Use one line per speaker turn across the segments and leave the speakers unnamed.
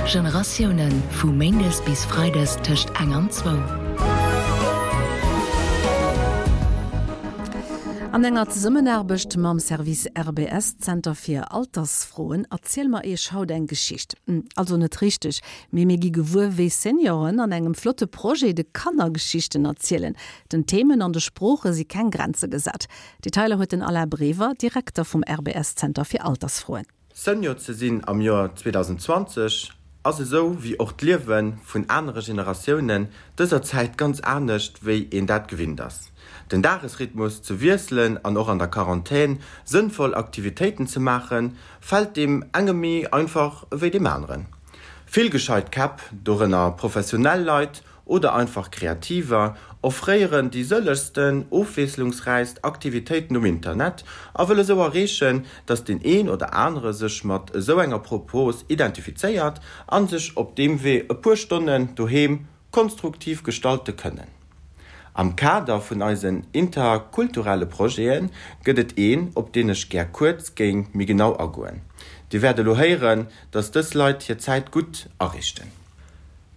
Generatiounen, vu méindes bis freides tëscht eng an zwou.
An enger Zesummenaarbecht mam Service RBS, Zenter fir Altersfroen, erziele mer Iech haut eng Geschicht. Also net richteg, mee mir gi gewuer, wéi Senioren an engem flotte Projet de Kanner Geschichten erzielen. Den Themen an de Sprooche si keng Grenze gesat. Detailer huet den Alain Brever, Direkter vum RBS Zenter fir Altersfroen.
Senior ze sinn am Joer 2020 ass esou wéi och d'Liewe vun anere Generatiounen dëser Zäit ganz anescht wéi een dat gewinnt ass. Den Dagesrhythmus ze wiesselen an och an der Quarantän sënnvoll Aktivitéiten ze maachen, fält deem enge méi einfach ewéi deem aneren. Vill gescheit Käpp, dorënner professionell Leit oder einfach Kreativer, offréieren déi sëllegsten, ofwiesslungsräichst Aktivitéiten um Internet a wëlle sou erreechen, dass deen een oder anere sech mat esou enger Propos identifizéiert an sech op deem Wee e puer Stonnen doheem konstruktiv gestalte kënnen. Am Kader vun eisen interkulturelle Projete gëtt et een, op deen ech gär kuerz géing méi genau agoen. Dir wäert elo héieren, dass dës Leit hir Zäit gutt ariichten.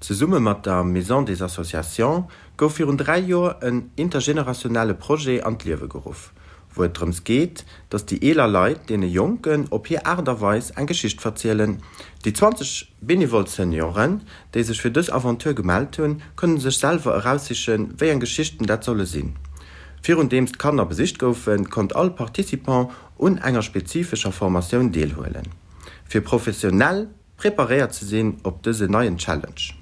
Zesumme mat der Maison des Associations gouf virun 3 Joer en intergenerationelle Projet an d'Liewe geruff, wou et drëms geet, datt déi eeler Leit deene Jonken op hir Aart a Weis eng Geschicht verzielen. Déi 20 benevol Senioren, déi sech fir dës Aventure gemellt hunn, kënne sech selwer eraussichen, wéi eng Geschichten dat solle sinn. Virundeems d'Kanner besicht goufen, konnt all Participant un enger spezifescher Formatioun deelhuelen, fir professionell Preparéiert ze sinn op dëse neien Challenge.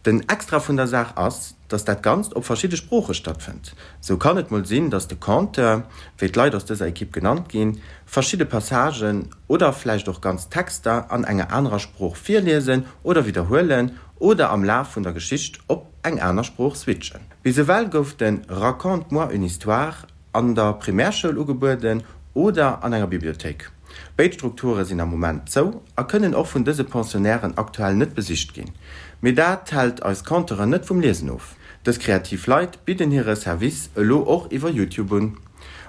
Den Extra vun der Saach ass, dass dat Ganzt op verschidde Sprooche stattfënnt. Sou kann et mol sinn, dass de Conteur, wéi d'Leit aus dëser Ekipp genannt ginn, verschidde Passagen oder vläicht och ganz Texter an enger anerer Sprooch virliesen oder widderhuelen oder am Laf vun der Geschicht op eng aner Sprooch switchen. Bis ewell gouf de Raconte-moi une histoire an der Primärschoul ugebueden oder an enger Bibliothéik. Béid Strukture sinn am Moment zou a kënnen och vun dëse Pensionnairen aktuell net besicht ginn. Mee dat hält eis Conteuren net vum Liesen of. Dës kreativ Leit bidden hire Service elo och iwwer YouTube un.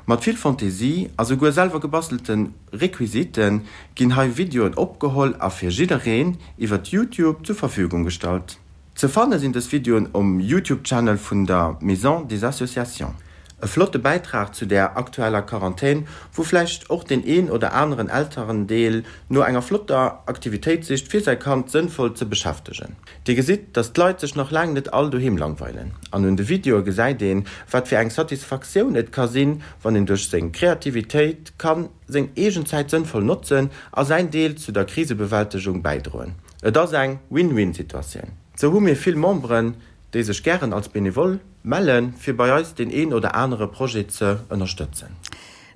Mat vill Fantaisie a souguer selwer gebastelte Requisite ginn hei Videoen opgeholl a fir jiddereen iwwer YouTube zur Verfügung gestallt. Ze fanne sinn dës Videoen um Youtube Channel vun der Maison des Associations. E flotte Bäitrag zu der aktueller Quarantän, wou vläicht och deen een oder aneren Elterendeel no enger flotter Aktivitéit sicht fir säi Kand sënnvoll ze beschäftegen. Dir gesitt, dass d'Leit sech nach laang net all doheem langweilen an un de Videoe gesäit een, wat fir eng Satisfaktioun et ka sinn, wann een duerch seng Kreativitéit kann seng eegen Zäit sënnvoll notzen a säin Deel zu der Krisebewältegung bäidroen. Et ass eng Win-Win-Situatioun. Sou hu mir vill Memberen, déi sech gären als Benevole mellen, fir bei eis deen een oder anere Projet ze ënnerstëtzen.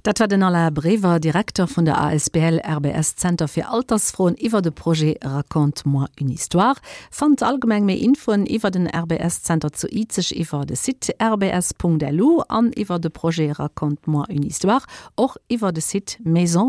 Dat war den Alain Brever, Direkter vun der asbl RBS Zenter fir Altersfroen iwwer de Projet Raconte-moi une histoire. Fannt allgemeng méi Infoen iwwer den RBS Zenter zu Izeg iwwer de Site rbs.lu an iwwer de Projet Raconte-moi une histoire och iwwer de Site Maison.